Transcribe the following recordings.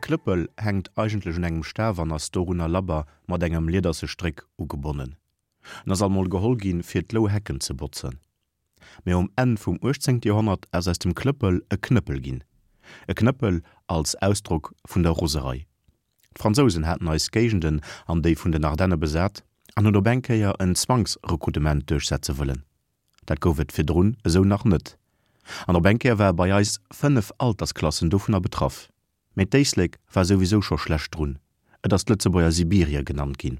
Klëppel hänkt eigentlech un engem Staf an ass dorunner labber mat engem liederse Stréck ugebonnen. En ass alt mol geholl ginn, fir d'Louhecken ze botzen. Mee um Enn vum 18. Joerhonnert ass aus dem Klëppel e Knëppel ginn. E Knëppel als Ausdrock vun der Roserei. D'Fransousen haten eis Géigenden an déi vun den Ardenne besat an hunn op eng Kéier en Zwangsrekrutement duerchsetze wëllen. Dat gouf et virdrun esou nach net. An op eng Kéier ware bei eis 5 Altersklassen dovunner betraff. Mee d'Éislek war souwisou scho schlecht drun, et ass d'Lëtzebuerger Sibirie genannt ginn.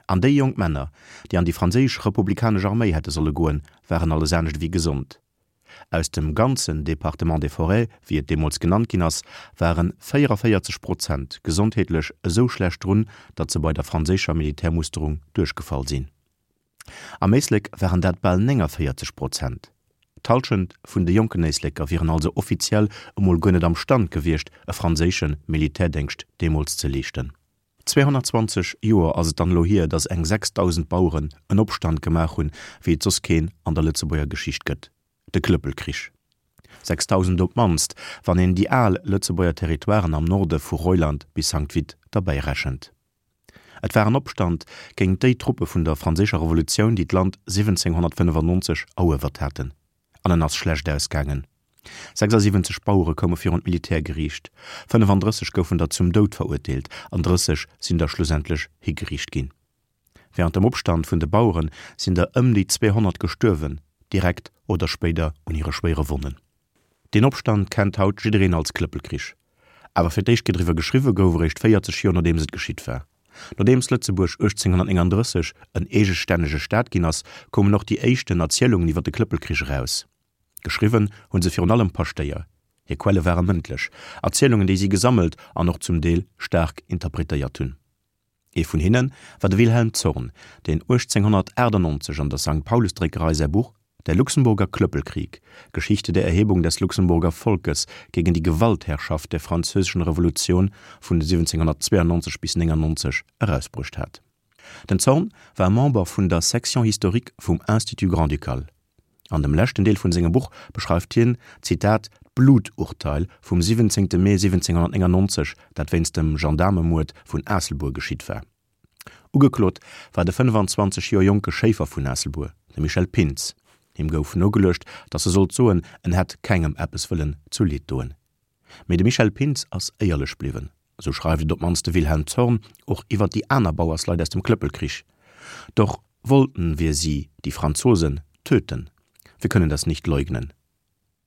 An déi jonk Männer, déi an déi franséisch republikanesch Arméi hätte solle goen, waren alles anescht ewéi gesond. Aus dem ganzen Département des Forêts, wéi et deemools genannt ginn ass, ware 44 Prozent gesondheetlech esou schlecht drun, datt se bei der franséischer Militärmusterung duerchgefall sinn. Am Éislek waren dat bal 49 Prozent. D'Hallschent vun de jonken Éisleker wieren also offiziell emol guer net am Stand gewiescht, e franséische Militärdéngscht deemools ze leeschten. 220 Joer ass et dann elo hier, datt eng 6.000 Baueren en Opstand gemaach hunn, wéi et soss keen an der Lëtzebuerger Geschicht gëtt, de Klëppelkrich. 6.000 op d'mannst, wann een déi al Lëtzebuerger Territoiren am Norde vu Reuland bis Sankt Vith derbäi rechent. Et war en Opstand géint déi Truppe vun der Franséischer Revolutioun, déi d'Land 1795 eruewert haten. An en ass schlecht ausgaangen. 76 Bauere koume virun d'Militärgeriicht, 35 goufen der zum Doud verurteelt an 30 sinn der schlussendlech higeriicht ginn. Wärend dem Opstand vun de Bauere sinn der ëm déi 200 gestuerwen, direkt oder spéider un hire schwéiere Wonnen. Deen Opstand kennt haut jiddereen als Klëppelkrich. Awer fir d'éischt Kéier driwwer geschriwwe gouf eréischt 40 Joer nodeems et geschitt war. Nodeems Lëtzebuerg 1839 en eegestännege Staat ginn ass, koumen och déi éischten Erzielungen iwwer de Klëppelkrich eraus. Geschriwwen hu se virun allem Paschtéier. Hir Quelle ware mëndlech Erzielungen, déi si gesammelt an och zum Deel staark interpretéiert hunn. Ee vun hinne war de Wilhelm Zorn, deen 1898 an der Sankt Paulus-Dréckerei säi Buch Der Luxemburger Klöppelkrieg, Geschichte der Erhebung des Luxemburger Volkes gegen die Gewaltherrschaft der Französischen Revolution vun 1792 bis 99 erausbruecht hat. Den Zorn war Member vun der Section historique vum Institut grand-ducal. An dem leschten Deel vun sengem Buch beschreift hien, Zitat, d'Bluturteil vum 17. Mee 1799, dat wéinst dem Gendaarmemuerd vun Aasselbuer geschitt war. Ugeklot war de 25 Joer jonke Schéifer vun Aasselbuer, de Michel Pintz. Him gouf nogeluecht, datt e sollt soen, en hätt kengem eppes wëllen zu Leed doen. Mee de Michel Pintz ass éierlech bliwwen. Esou schreift et op d'mannst de Wilhelm Zorn och iwwer déi aner Bauersleit aus dem Klëppelkrich, Doch wollten wir sie, die Franzosen, töten. Wir können das nicht leugnen.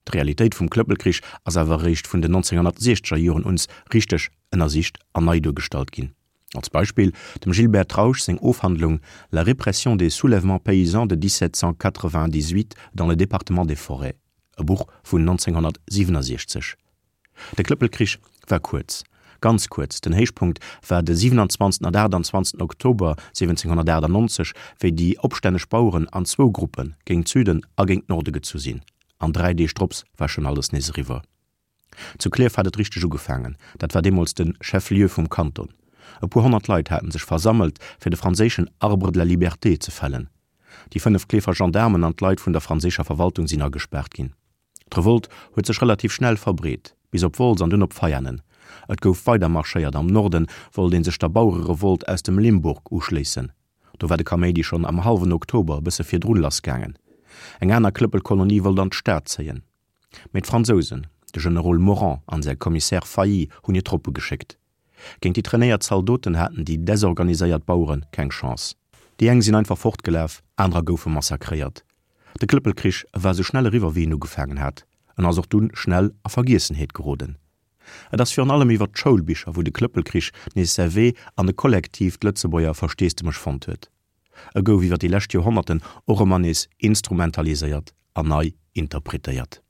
D'Realitéit vum Klëppelkrich ass awer eréischt vun den 1960er Joren uns richteg ënnersicht an nei duergestallt ginn. Als Beispill dem Gilbert Trausch seng Ofhandlung La répression des soulèvements paysans de 1798 dans le département des Forêts, e Buch vun 1967. De Klëppelkrich war kuerz, ganz kuerz, den Héichpunkt war de 27 an 28 Oktober 1798, wéi déi opstänneg Baueren an zwou Gruppe géint Süden a géint Norde gezu sinn, an 3 Deeg drops war schonn alles nees eriwwer. Zu Klierf hat et richteg ugefaangen, dat war deemools de Chef-lieu vum Kanton. E puer honnert Leit haten sech versammelt, fir de franséischen Arbre de la Liberté ze fällen. Déi 5 Klierfer Gendaarmen an d'Leit vun der franséischer Verwaltung sinn agespaart ginn. D'Revolt huet sech relativ schnell verbreet, bis op Wolz an dunn op Veianen. Et gouf weider marschéiert, am Norde wollt ee sech der Bauererevolt aus dem Limburg uschléissen. Do war de Kaméidi schonn am hallwen Oktober e bësse virdrun lassgaangen. Eng aner Klëppelkolonie wollt an d'Stad zéien. Mee d'Fransousen, de Generol Morand an säi Commissaire Failly hunn hir Truppe geschéckt. Géint déi trainéiert Zaldoten haten déi desorganiséiert Bauere keng Chance. Déi eng sinn einfach fortgelaf, anerer goufe massakréiert. De Klëppelkrich war sou schnell eriwwer wéi en ugefaangen hat. En ass och dunn schnell a Vergiessenheet geroden. Et ass virun allem iwwer d'Schoulbicher wou de Klëppelkrich nees säi Wee an e kollektiivt Lëtzebuerger Versteesdemech fonnt huet. E gouf iwwer déi lescht Joerhonnerten och ëmmer nees instrumentaliséiert an nei interpretéiert.